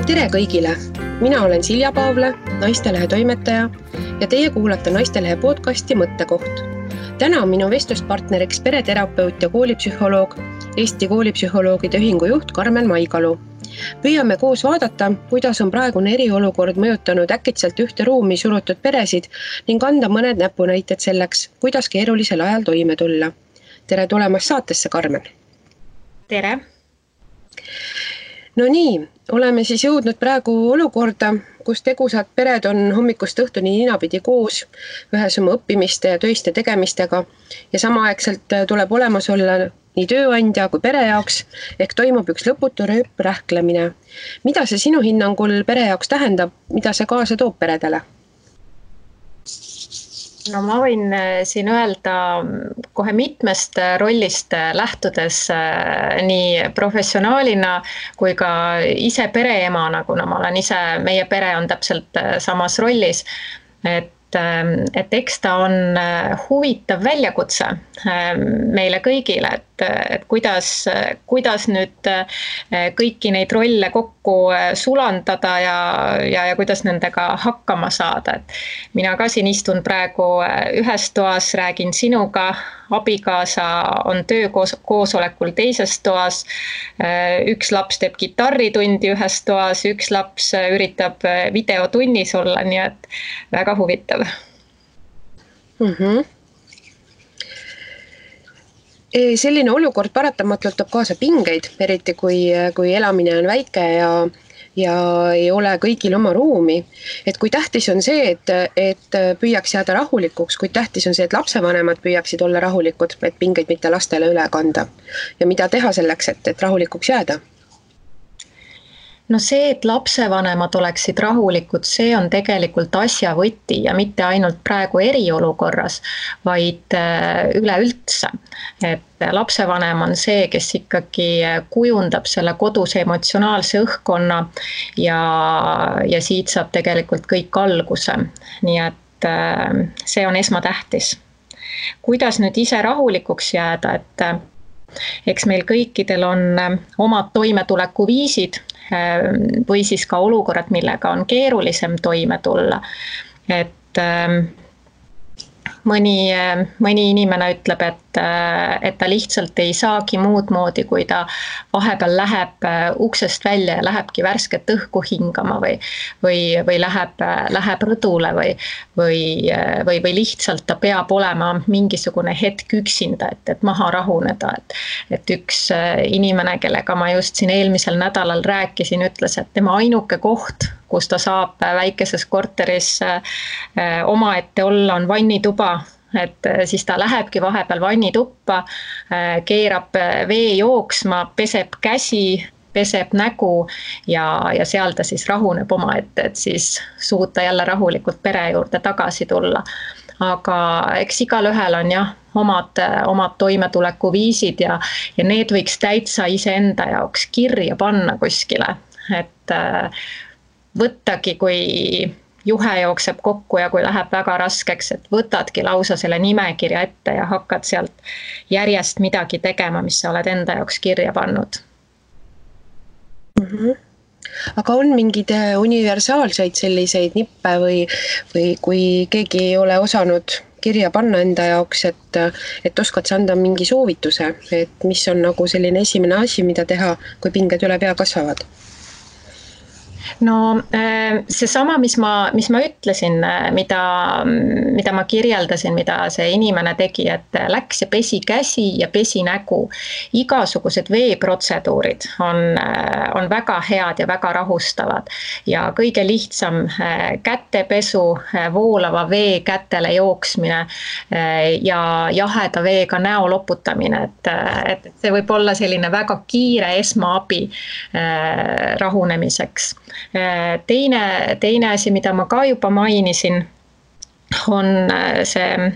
Tere kõigile! Mina olen Silja Paavla, Naistelehe toimetaja ja teie kuulate Naistelehe podcasti Mõttekoht. Täna on minu vestluspartneriks pereterapeut ja koolipsühholoog, Eesti koolipsühholoogide ühingu juht Karmen Maigalu. Püüame koos vaadata, kuidas on praegune eriolukord mõjutanud äkitselt ühte ruumi surutud peresid ning anda mõned näpunäited selleks, kuidas keerulisel ajal toime tulla. Tere tulemast saatesse, Karmen! Tere! No nii, oleme siis jõudnud praegu olukorda, kus tegusad pered on hommikust õhtuni ninapidi koos, ühes oma õppimiste ja töiste tegemistega ja samaaegselt tuleb olemas olla nii tööandja kui pere jaoks, ehk toimub üks lõputu rööprähklemine. Mida see sinu hinnangul pere jaoks tähendab, mida see kaasa toob peredele? No ma võin siin öelda kohe mitmest rollist lähtudes nii professionaalina kui ka ise pereemana, kuna ma olen ise, meie pere on täpselt samas rollis, et eks ta on huvitav väljakutse meile kõigile, et kuidas nüüd kõiki neid rolle kokku sulandada ja kuidas nendega hakkama saada. Et mina ka siin istun praegu ühes toas, räägin sinuga, abikaasa on töökoosolekul teises toas, üks laps teeb kitarritundi ühes toas, üks laps üritab videotunnis olla, nii et väga huvitav. Selline olukord paratamatult toob kaasa pingeid, eriti kui elamine on väike ja ei ole kõigil oma ruumi. Et kui tähtis on see, et püüaks jääda rahulikuks, kui tähtis on see, et lapsevanemad püüaksid olla rahulikud, et pingeid mitte lastele üle kanda. Ja mida teha selleks, et rahulikuks jääda? No see, et lapsevanemad oleksid rahulikud, see on tegelikult asja võti ja mitte ainult praegu eriolukorras, vaid üleüldse. Et lapsevanem on see, kes ikkagi kujundab selle koduse emotsionaalse õhkkonna ja siit saab tegelikult kõik alguse. Nii et see on esmatähtis. Kuidas nüüd ise rahulikuks jääda, et eks meil kõikidel on omad toimetuleku viisid, või siis ka olukorrad, millega on keerulisem toime tulla. Et mõni inimene ütleb, et ta lihtsalt ei saagi muud moodi, kui ta vahepeal läheb uksest välja ja lähebki värsket õhku hingama või läheb rõdule või lihtsalt ta peab olema mingisugune hetk üksinda, et maha rahuneda. Et üks inimene, kellega ma just siin eelmisel nädalal rääkisin, ütles, et tema ainuke koht, kus ta saab väikeses korteris omaette olla, on vannituba. Et siis ta lähebki vahepeal vannituppa, keerab vee jooksma, peseb käsi, peseb nägu ja seal ta siis rahuneb omaette, et siis suuta jälle rahulikult pere juurde tagasi tulla. Aga eks igal ühel on omad toimetuleku viisid ja need võiks täitsa iseenda jaoks kirja panna kuskile. Et võttagi, kui juhe jookseb kokku ja kui läheb väga raskeks, et võtadki lausa selle nimekirja ette ja hakkad sealt järjest midagi tegema, mis sa oled enda jaoks kirja pannud. Aga on mingid universaalseid selliseid nippe või kui keegi ei ole osanud kirja panna enda jaoks, et oskad sa anda mingi soovituse, et mis on nagu selline esimene asi, mida teha, kui pinged üle pea kasvavad? No see sama, mis ma ütlesin, mida ma kirjeldasin, mida see inimene tegi, et läks ja pesi käsi ja pesi nägu. Igasugused veeprotseduurid on väga head ja väga rahustavad ja kõige lihtsam kätepesu, voolava vee kätele jooksmine ja jaheda veega näo loputamine, et see võib olla selline väga kiire esmaabi rahunemiseks. Teine asi, mida ma ka juba mainisin, on see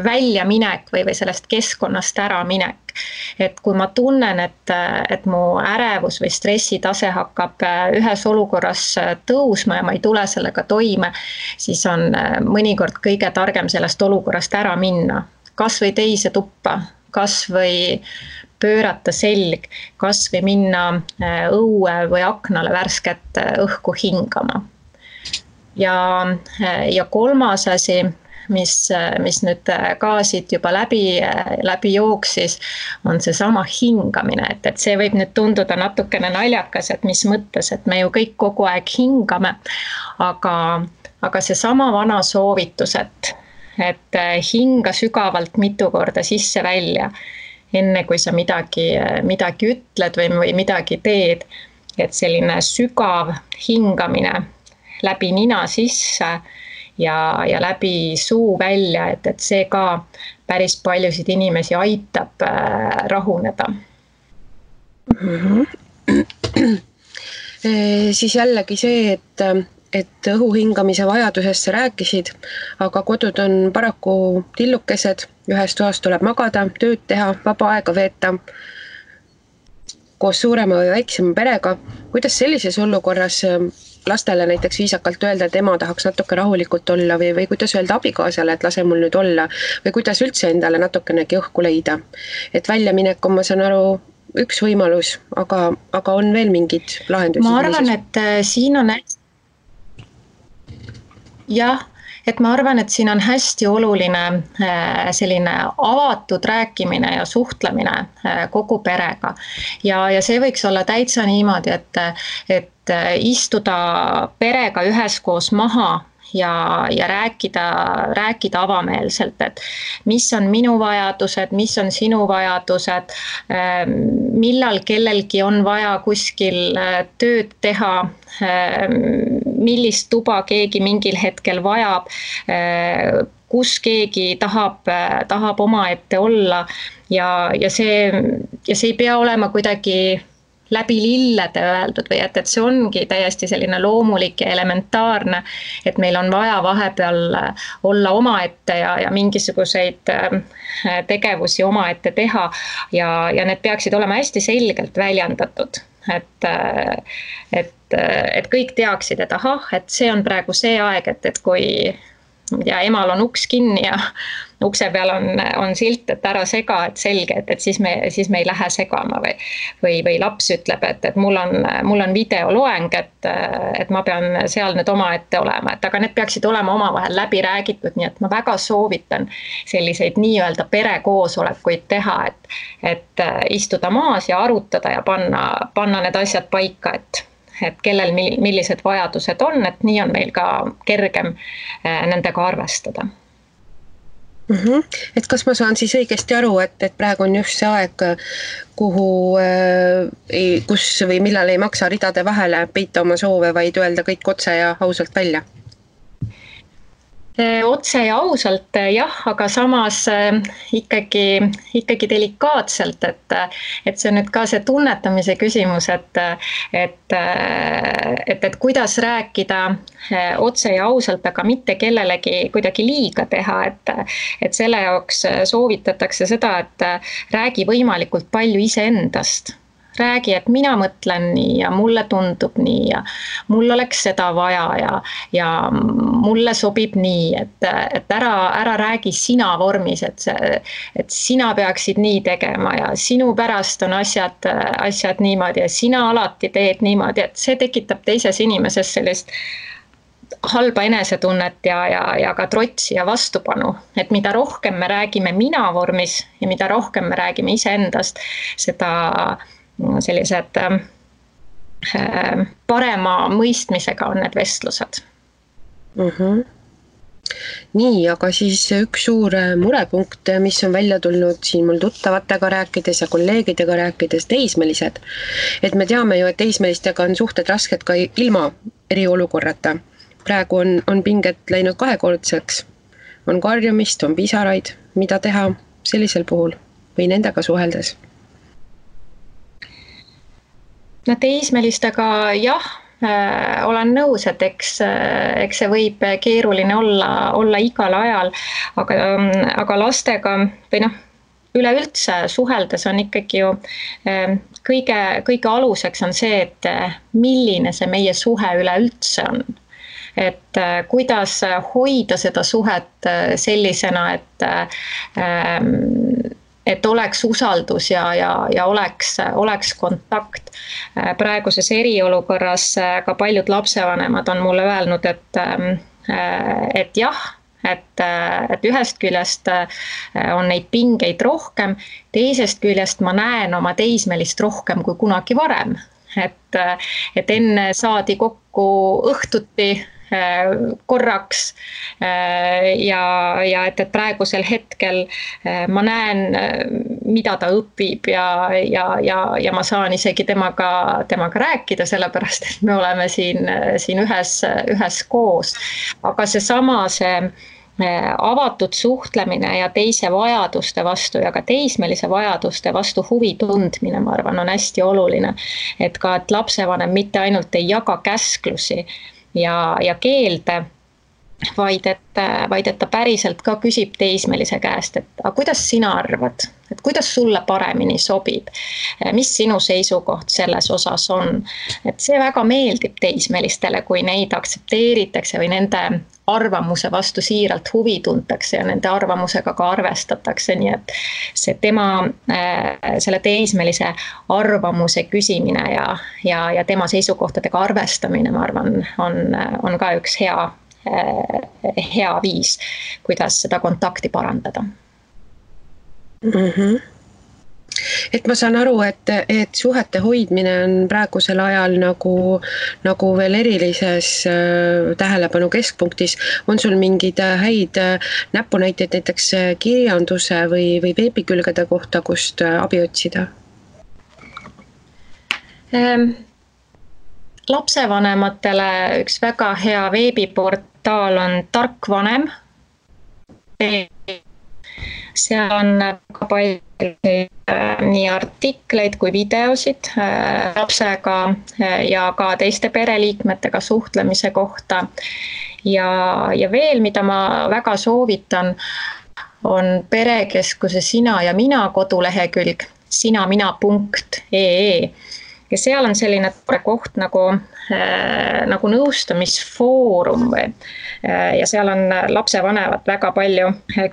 väljaminek või sellest keskkonnast ära minek. Et kui ma tunnen, et mu ärevus või stressitase hakkab ühes olukorras tõusma ja ma ei tule sellega toime, siis on mõnikord kõige targem sellest olukorrast ära minna. Kas või teise tuppa, kas või pöörata selg, kas või minna õue või aknale värsket õhku hingama. Ja kolmas asi, mis nüüd ka siit juba läbi jooksis, on see sama hingamine, et see võib nüüd tunduda natukene naljakas, et mis mõttes, et me ju kõik kogu aeg hingame, aga see sama vana soovitus, et hinga sügavalt mitu korda sisse-välja, enne kui sa midagi ütled või midagi teed, et selline sügav hingamine läbi nina sisse ja läbi suu välja, et see ka päris paljusid inimesi aitab rahuneda. Siis jällegi see, et õhu hingamise vajadusest sa rääkisid, aga kodud on paraku tillukesed, ühes toas tuleb magada, tööd teha, vaba aega veeta koos suurema või väiksema perega. Kuidas sellises olukorras lastele näiteks viisakalt öelda, et ema tahaks natuke rahulikult olla või kuidas öelda abikaasale, et lase mul nüüd olla või kuidas üldse endale natukenegi õhku leida. Et väljaminek on, ma saan aru, üks võimalus, aga on veel mingid lahendusi? Ma arvan, et siin on ma arvan, et siin on hästi oluline selline avatud rääkimine ja suhtlemine kogu perega. Ja see võiks olla täitsa niimoodi, et istuda perega üheskoos maha ja rääkida avameelselt, et mis on minu vajadused, mis on sinu vajadused, millal kellelgi on vaja kuskil tööd teha, millist tuba keegi mingil hetkel vajab, kus keegi tahab omaette olla ja see ei pea olema kuidagi läbi lillede öeldud või et see ongi täiesti selline loomulik ja elementaarne, et meil on vaja vahepeal olla omaette ja mingisuguseid tegevusi omaette teha ja need peaksid olema hästi selgelt väljendatud, et kõik teaksid, et ahah, et see on praegu see aeg, et kui emal on uks kinni ja ukse peal on silt, et ära sega, et selge, et siis me ei lähe segama või laps ütleb, et mul on videoloeng, et ma pean seal nüüd omaette olema, et aga need peaksid olema omavahel läbi räägitud, nii et ma väga soovitan selliseid nii-öelda perekoosolekuid teha, et istuda maas ja arutada ja panna need asjad paika, et kellel millised vajadused on, et nii on meil ka kergem nendega arvestada. Et kas ma saan siis õigesti aru, et praegu on just see aeg, kus või millal ei maksa ridade vahele peita oma soove, vaid öelda kõik otse ja ausalt välja? Otse ja ausalt jah, aga samas ikkagi delikaatselt, et see on nüüd ka see tunnetamise küsimus, et kuidas rääkida otse ja ausalt, aga mitte kellelegi kuidagi liiga teha, et selle jaoks soovitatakse seda, et räägi võimalikult palju iseendast. Räägi, et mina mõtlen nii ja mulle tundub nii ja mul oleks seda vaja ja mulle sobib nii, et ära räägi sina vormis, et sina peaksid nii tegema ja sinu pärast on asjad niimoodi ja sina alati teed niimoodi, et see tekitab teises inimeses sellist halba enesetunnet ja ka trotsi ja vastupanu, et mida rohkem me räägime mina vormis ja mida rohkem me räägime iseendast, seda sellised parema mõistmisega on need vestlused. Nii, aga siis üks suur murepunkt, mis on välja tulnud siin mul tuttavatega rääkides ja kolleegidega rääkides, teismelised. Et me teame ju, et teismelistega on suhted rasked ka ilma eriolukorrata. Praegu on pinget läinud kahekordseks, on karjumist, on pisaraid, mida teha sellisel puhul või nendega suheldes? No teismelistega jah, olen nõus, et eks see võib keeruline olla igal ajal, aga lastega või üleüldse suheldes on ikkagi ju kõige aluseks on see, et milline see meie suhe üleüldse on. Et kuidas hoida seda suhet sellisena, et oleks usaldus ja oleks kontakt. Praeguses eriolukorras ka paljud lapsevanemad on mulle öelnud, et jah, et ühest küljest on neid pingeid rohkem, teisest küljest ma näen oma teismelist rohkem kui kunagi varem. Et enne saadi kokku õhtuti korraks ja et praegusel hetkel ma näen, mida ta õpib ja ma saan isegi temaga rääkida, sellepärast et me oleme siin ühes koos. Aga see avatud suhtlemine ja teise vajaduste vastu ja ka teismelise vajaduste vastu huvi tundmine, ma arvan, on hästi oluline. Et lapsevanem mitte ainult ei jaga käsklusi ja keelde, vaid et ta päriselt ka küsib teismelise käest, et kuidas sina arvad, et kuidas sulle paremini sobib, mis sinu seisukoht selles osas on. Et see väga meeldib teismelistele, kui neid aktsepteeritakse või nende arvamuse vastu siiralt huvi tuntakse ja nende arvamusega ka arvestatakse, nii et see selle teismelise arvamuse küsimine ja tema seisukohtadega arvestamine, ma arvan, on ka üks hea viis, kuidas seda kontakti parandada. Mm-hmm. Et ma saan aru, et suhete hoidmine on praegusel ajal nagu veel erilises tähelepanu keskpunktis. On sul mingid häid näpunäiteid näiteks kirjanduse või veebikülgede kohta, kust abi otsida? Lapsevanematele üks väga hea veebiportaal on Tark vanem. Seal on väga palju nii artikleid kui videosid lapsega ja ka teiste pereliikmetega suhtlemise kohta. Ja veel, mida ma väga soovitan, on Perekeskuse Sina ja Mina kodulehekülg sinamina.ee. Ja seal on selline koht nagu nõustamisfoorum ja seal on lapsevanemad väga palju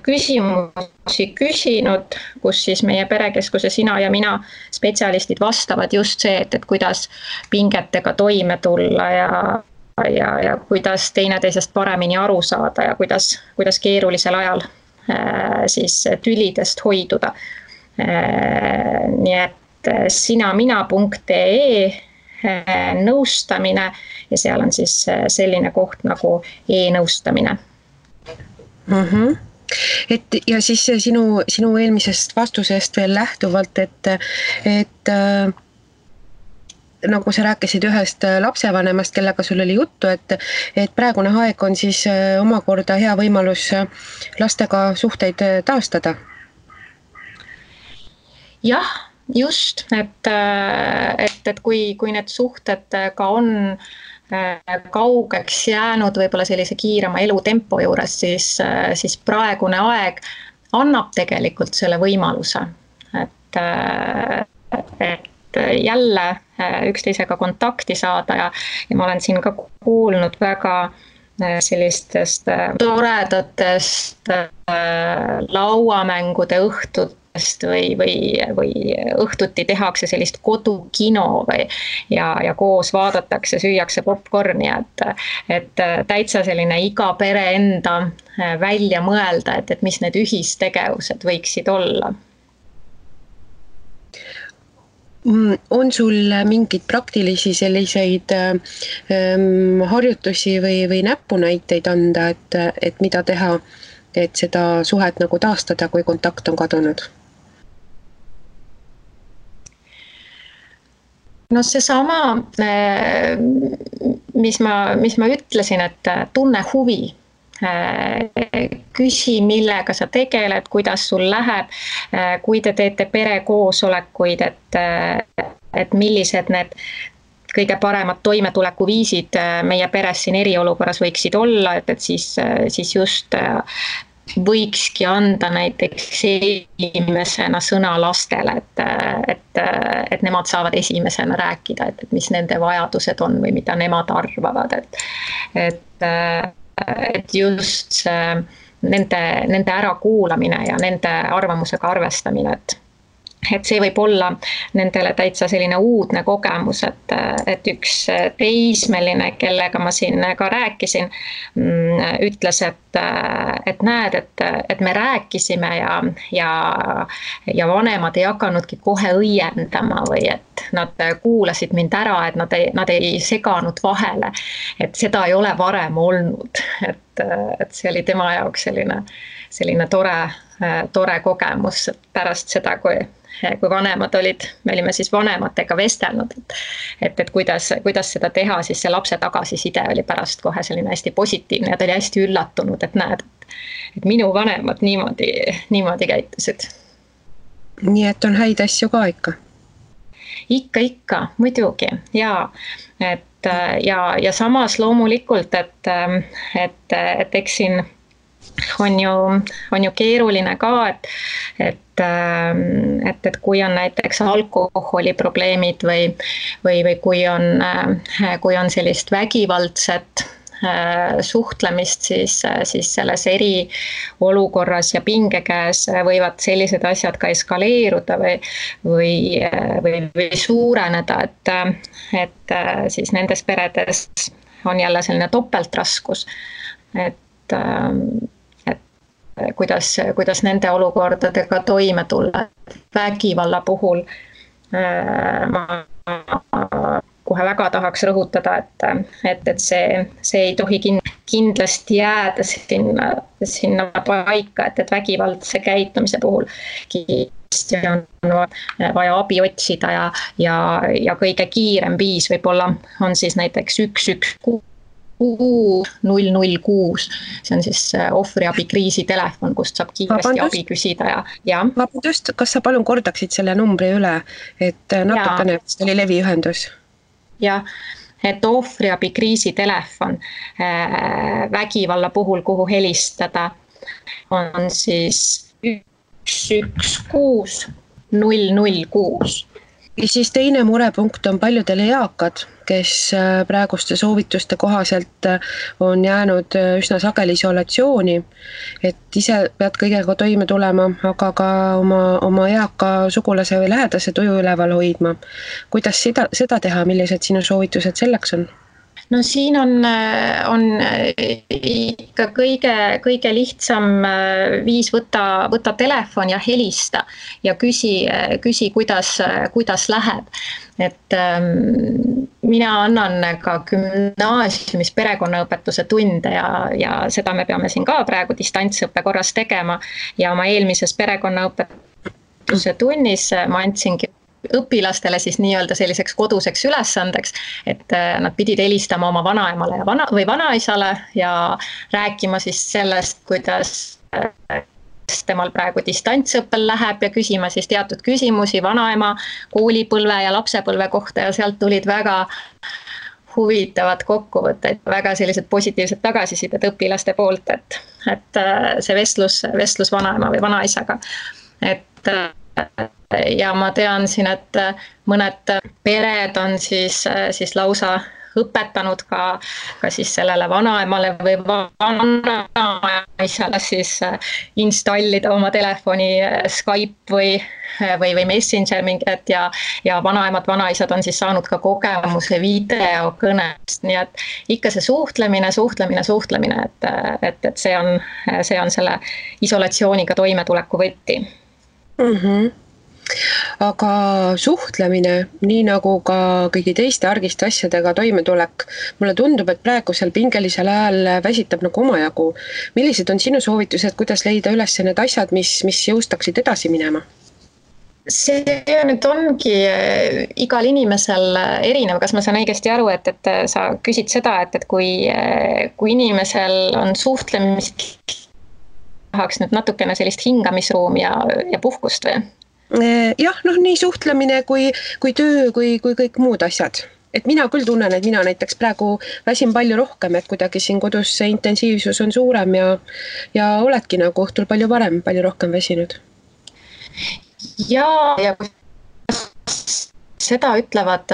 küsimusi küsinud, kus siis meie Perekeskuse Sina ja Mina spetsialistid vastavad just see, et kuidas pingetega toime tulla ja kuidas teineteisest paremini aru saada ja kuidas keerulisel ajal siis tülidest hoiduda. Nii et sinamina.ee nõustamine ja seal on siis selline koht nagu e-nõustamine. Mm-hmm. Ja siis sinu eelmisest vastusest veel lähtuvalt, et nagu sa rääkisid ühest lapsevanemast, kellega sul oli juttu, et praegune aeg on siis omakorda hea võimalus lastega suhteid taastada. Jah, just, et kui need suhted ka on kaugeks jäänud võib-olla sellise kiirema elutempo juures, siis praegune aeg annab tegelikult selle võimaluse, et jälle üksteisega kontakti saada ja ma olen siin ka kuulnud väga sellistest toredatest lauamängude õhtut või õhtuti tehakse sellist kodukino ja koos vaadatakse, süüakse popcorni, et täitsa selline iga pere enda välja mõelda, et mis need ühistegevused võiksid olla. On sul mingid praktilisi selliseid harjutusi või näpunäiteid anda, et mida teha, et seda suhet nagu taastada, kui kontakt on kadunud? No seesama, mis ma ütlesin, et tunne huvi, küsi, millega sa tegeled, kuidas sul läheb, kui te teete perekoosolekuid, et millised need kõige paremad toimetulekuviisid meie peres siin eriolukorras võiksid olla, et siis just võikski anda näiteks esimesena sõna lastele, et nemad saavad esimesena rääkida, et mis nende vajadused on või mida nemad arvavad, et just see nende ärakuulamine ja nende arvamusega arvestamine, et see võib olla nendele täitsa selline uudne kogemus, et üks teismeline, kellega ma siin ka rääkisin, ütles, et näed, et me rääkisime ja vanemad ei hakanudki kohe õiendama või et nad kuulasid mind ära, et nad ei seganud vahele, et seda ei ole varem olnud, et see oli tema jaoks selline tore kogemus, et pärast seda, kui vanemad olid, me olime siis vanematega vestelnud, et kuidas seda teha, siis see lapse tagasiside oli pärast kohe selline hästi positiivne ja ta oli hästi üllatunud, et näed, et minu vanemad niimoodi käitusid. Nii et on häid asju ka ikka? Ikka, muidugi, jaa. Ja samas loomulikult, et eks siin on ju keeruline ka, et kui on näiteks alkoholiprobleemid või kui on sellist vägivaldset suhtlemist, siis selles eriolukorras ja pingekäes võivad sellised asjad ka eskaleeruda või suureneda, et siis nendes peredes on jälle selline topeltraskus, et kuidas nende olukordadega toime tulla. Vägivalla puhul ma kohe väga tahaks rõhutada, et see ei tohi kindlasti jääda sinna paika, et vägivaldse käitumise puhul kindlasti on vaja abi otsida ja kõige kiirem viis võib-olla on siis näiteks 116 006, see on siis ohvriabi kriisitelefon, kust saab kiiresti abi küsida ja. Vabandust, kas sa palun kordaksid selle numbri üle, et natukene oli leviühendus? Jah, et ohvriabi kriisitelefon vägivalla puhul, kuhu helistada, on siis 116 006. Ja siis teine murepunkt on paljudel eakad, kes praeguste soovituste kohaselt on jäänud üsna sageli isolatsiooni, et ise pead kõigega toime tulema, aga ka oma eaka sugulase või lähedase tuju üleval hoidma. Kuidas seda teha, millised sinu soovitused selleks on? No siin on ikka kõige lihtsam viis võtta telefon ja helista ja küsi kuidas läheb. Et mina annan ka gümnaasiumis perekonnaõpetuse tunde ja seda me peame siin ka praegu distantsõppe korras tegema ja oma eelmises perekonnaõpetuse tunnis ma andsingi õpilastele siis nii-öelda selliseks koduseks ülesandeks, et nad pidid helistama oma vanaemale või vanaisale ja rääkima siis sellest, kuidas temal praegu distantsõppel läheb ja küsima siis teatud küsimusi vanaema koolipõlve ja lapsepõlve kohta ja sealt tulid väga huvitavad kokkuvõtted, väga sellised positiivsed tagasisidet õpilaste poolt, et see vestlus vanaema või vanaisaga, ja ma tean siin, et mõned pered on siis lausa õpetanud ka siis sellele vanaemale või vanaisale siis installida oma telefoni Skype või Messenger mingid ja vanaemad, vanaisad on siis saanud ka kogemuse videokõnest, nii et ikka see suhtlemine, et see on selle isolatsiooniga toimetuleku võti. Aga suhtlemine, nii nagu ka kõigi teiste argiste asjadega toimetulek, mulle tundub, et praegusel pingelisel ajal väsitab nagu omajagu. Millised on sinu soovitused, kuidas leida üles need asjad, mis jõustaksid edasi minema? See nüüd ongi igal inimesel erinev, kas ma saan õigesti aru, et sa küsid seda, et kui inimesel on suhtlemist, tahaks nüüd natukene sellist hingamisruumi ja puhkust või? Jah, nii suhtlemine kui töö, kui kõik muud asjad. Et mina küll tunnen, et mina näiteks praegu väsin palju rohkem, et kuidagi siin kodus see intensiivsus on suurem ja oledki nagu õhtul palju rohkem väsinud. Ja seda ütlevad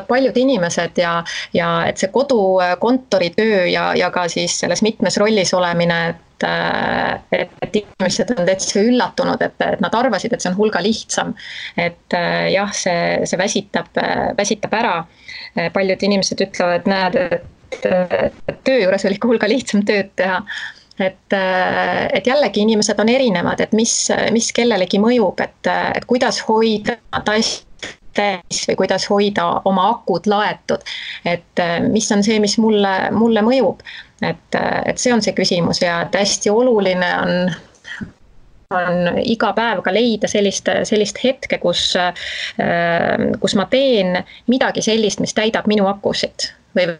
paljud inimesed ja et see kodukontoritöö ja ka siis selles mitmes rollis olemine, et inimesed on täitsa üllatunud, et nad arvasid, et see on hulga lihtsam. Et jah, see väsitab ära. Paljud inimesed ütlevad, näed, et töö juures oli ikka hulga lihtsam tööd teha. Et jällegi inimesed on erinevad, et mis kellelegi mõjub, et kuidas hoida täis või kuidas hoida oma akud laetud, et mis on see, mis mulle mõjub, et see on see küsimus ja et hästi oluline on iga päev ka leida sellist hetke, kus ma teen midagi sellist, mis täidab minu akusid või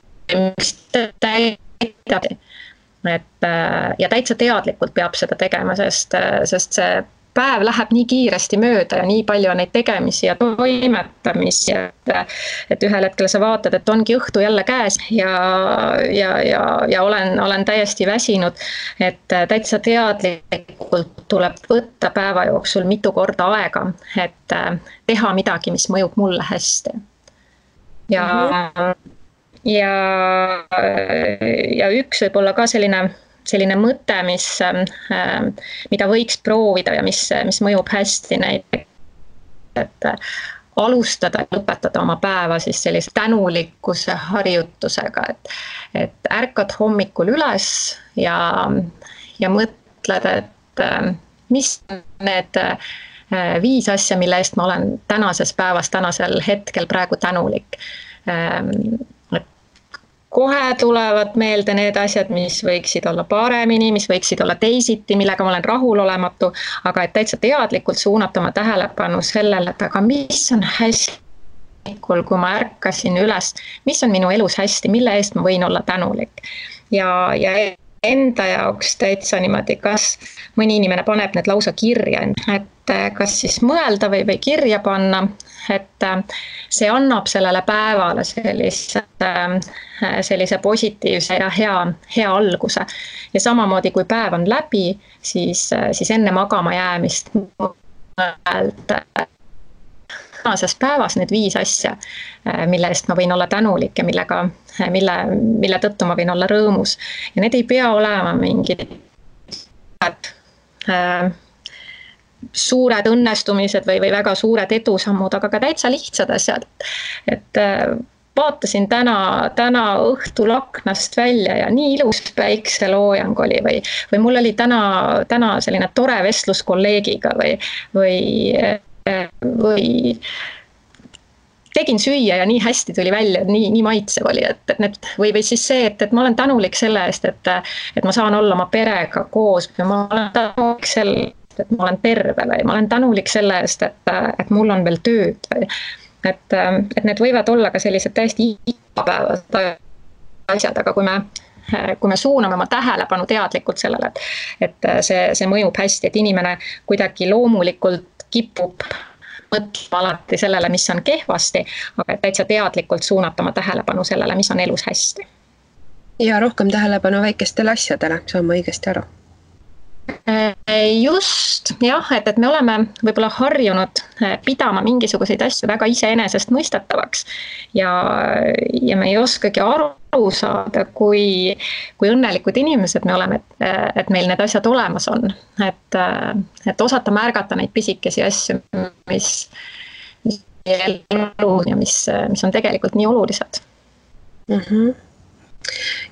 mis täidab. Ja täitsa teadlikult peab seda tegema, sest see päev läheb nii kiiresti mööda ja nii palju on neid tegemisi ja toimetamisi, et ühel hetkel sa vaatad, et ongi õhtu jälle käes ja olen täiesti väsinud, et täitsa teadlikult tuleb võtta päeva jooksul mitu korda aega, et teha midagi, mis mõjub mulle hästi. Ja üks võib olla ka selline mõte, mida võiks proovida ja mis mõjub hästi näiteks, et alustada ja lõpetada oma päeva siis sellise tänulikkuse harjutusega, et ärkad hommikul üles ja mõtled, et mis need 5 asja, mille eest ma olen tänases päevas, tänasel hetkel praegu tänulik. Kohe tulevad meelde need asjad, mis võiksid olla paremini, mis võiksid olla teisiti, millega ma olen rahulolematu, aga et täitsa teadlikult suunata oma tähelepanu sellele, et aga mis on hästi, kui ma ärkasin üles, mis on minu elus hästi, mille eest ma võin olla tänulik. Ja enda jaoks täitsa niimoodi, kas mõni inimene paneb need lausa kirja, et kas siis mõelda või kirja panna, et see annab sellele päevale sellise positiivse ja hea alguse. Ja samamoodi, kui päev on läbi, siis enne magama jäämist tänases päevas need 5 asja, mille eest ma võin olla tänulik ja mille tõttu ma võin olla rõõmus. Ja need ei pea olema mingid suured õnnestumised või väga suured edusammud, aga ka täitsa lihtsad asjad. Et vaatasin täna õhtul aknast välja ja nii ilus päikseloojang oli või mul oli täna selline tore vestlus kolleegiga või tegin süüa ja nii hästi tuli välja, nii maitsev oli, või siis see, et ma olen tänulik selle eest, et ma saan olla oma perega koos või ma olen tänulik selle, et ma olen terve või ma olen tänulik selle eest, et mul on veel tööd või et need võivad olla ka sellised täiesti igapäevased asjad, aga kui me suuname oma tähelepanu teadlikult sellele, et see mõjub hästi, et inimene kuidagi loomulikult kipub mõtlema alati sellele, mis on kehvasti, aga täitsa teadlikult suunata oma tähelepanu sellele, mis on elus hästi. Ja rohkem tähelepanu väikestele asjadele, saan ma õigesti aru? Just, jah, et me oleme võib-olla harjunud pidama mingisuguseid asju väga iseenesest mõistetavaks ja me ei oskagi aru saada, kui õnnelikud inimesed me oleme, et meil need asjad olemas on, et osata märgata neid pisikesi asju, mis elu ja mis on tegelikult nii olulised.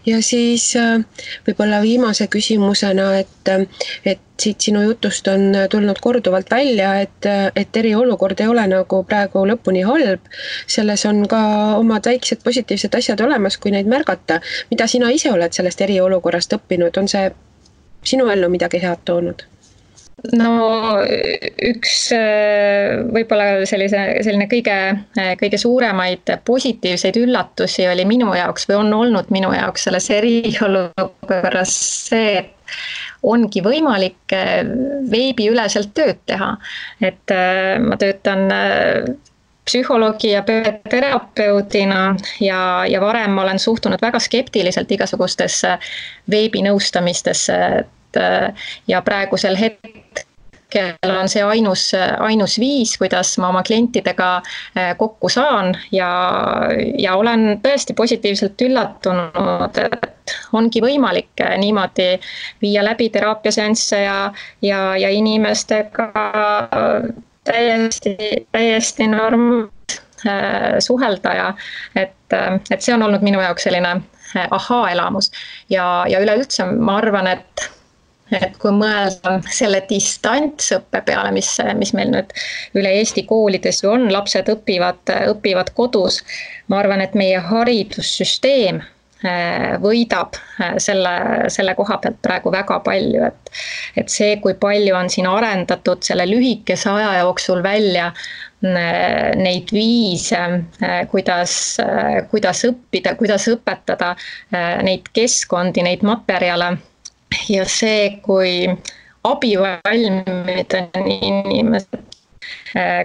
Ja siis võib-olla viimase küsimusena, et siit sinu jutust on tulnud korduvalt välja, et eriolukord ei ole nagu praegu lõpuni halb. Selles on ka omad väiksed positiivsed asjad olemas, kui neid märgata. Mida sina ise oled sellest eriolukorrast õppinud? On see sinu ellu midagi head toonud? No üks võib-olla selline kõige suuremaid positiivseid üllatusi oli minu jaoks või on olnud minu jaoks selles eriolukorras see, et ongi võimalik veebiüleselt tööd teha. Et ma töötan psühholoogi ja terapeudina ja varem ma olen suhtunud väga skeptiliselt igasugustesse veebinõustamistesse ja praegusel hetkel hetkel on see ainus viis, kuidas ma oma klientidega kokku saan ja olen tõesti positiivselt üllatunud, et ongi võimalik niimoodi viia läbi teraapiaseansse ja inimestega täiesti normaalselt suhelda ja et see on olnud minu jaoks selline ahaa-elamus ja üleüldse ma arvan, et kui mõelda selle distantsõppe peale, mis meil nüüd üle Eesti koolides ju on, lapsed õpivad kodus, ma arvan, et meie haridussüsteem võidab selle koha pealt praegu väga palju, et see, kui palju on siin arendatud selle lühikese aja jooksul välja neid viise, kuidas õppida, kuidas õpetada neid keskkondi, neid materjale ja see, kui abivalmid on inimesed,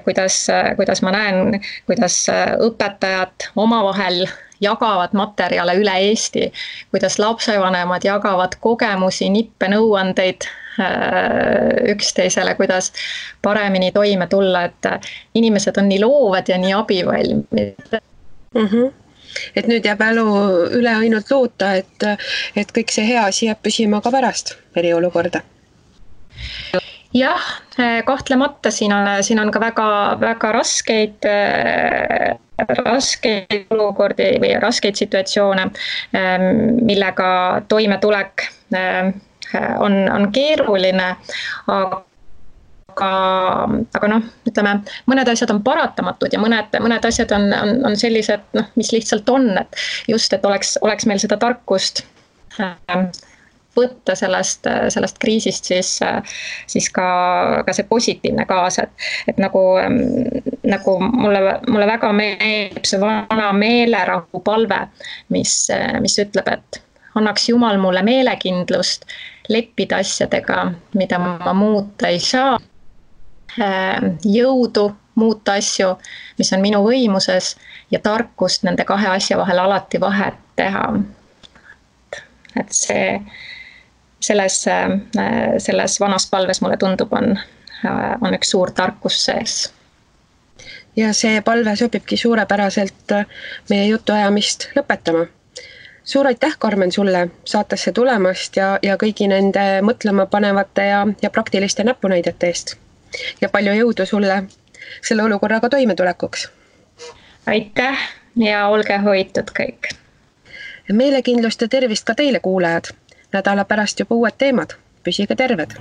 kuidas ma näen, kuidas õpetajad omavahel jagavad materjale üle Eesti, kuidas lapsevanemad jagavad kogemusi, nippe, nõuandeid üksteisele, kuidas paremini toime tulla, et inimesed on nii loovad ja nii abivalmid. Et nüüd jääb elu üle ainult loota, et kõik see hea asi jääb püsima ka pärast eriolukorda. Jah, kahtlemata siin on ka väga raskeid olukordi või raskeid situatsioone, millega toimetulek on keeruline, aga ütleme, mõned asjad on paratamatud ja mõned asjad on sellised, mis lihtsalt on, et just, et oleks meil seda tarkust võtta sellest kriisist siis ka see positiivne kaasa, et nagu mulle väga meeldib see vana meelerahu palve, mis ütleb, et annaks Jumal mulle meelekindlust leppida asjadega, mida ma muuta ei saa, jõudu muuta asju, mis on minu võimuses ja tarkust nende kahe asja vahel alati vahet teha. Et selles vanas palves mulle tundub on üks suur tarkus sees. Ja see palve sobibki suurepäraselt meie jutuajamist lõpetama. Suur aitäh, Karmen, sulle saatesse tulemast ja kõigi nende mõtlema panevate ja praktiliste näpunäidete eest. Ja palju jõudu sulle selle olukorraga toimetulekuks. Aitäh ja olge hoitud kõik. Meelekindlust ja tervist ka teile, kuulajad. Nädala pärast juba uued teemad. Püsige terved!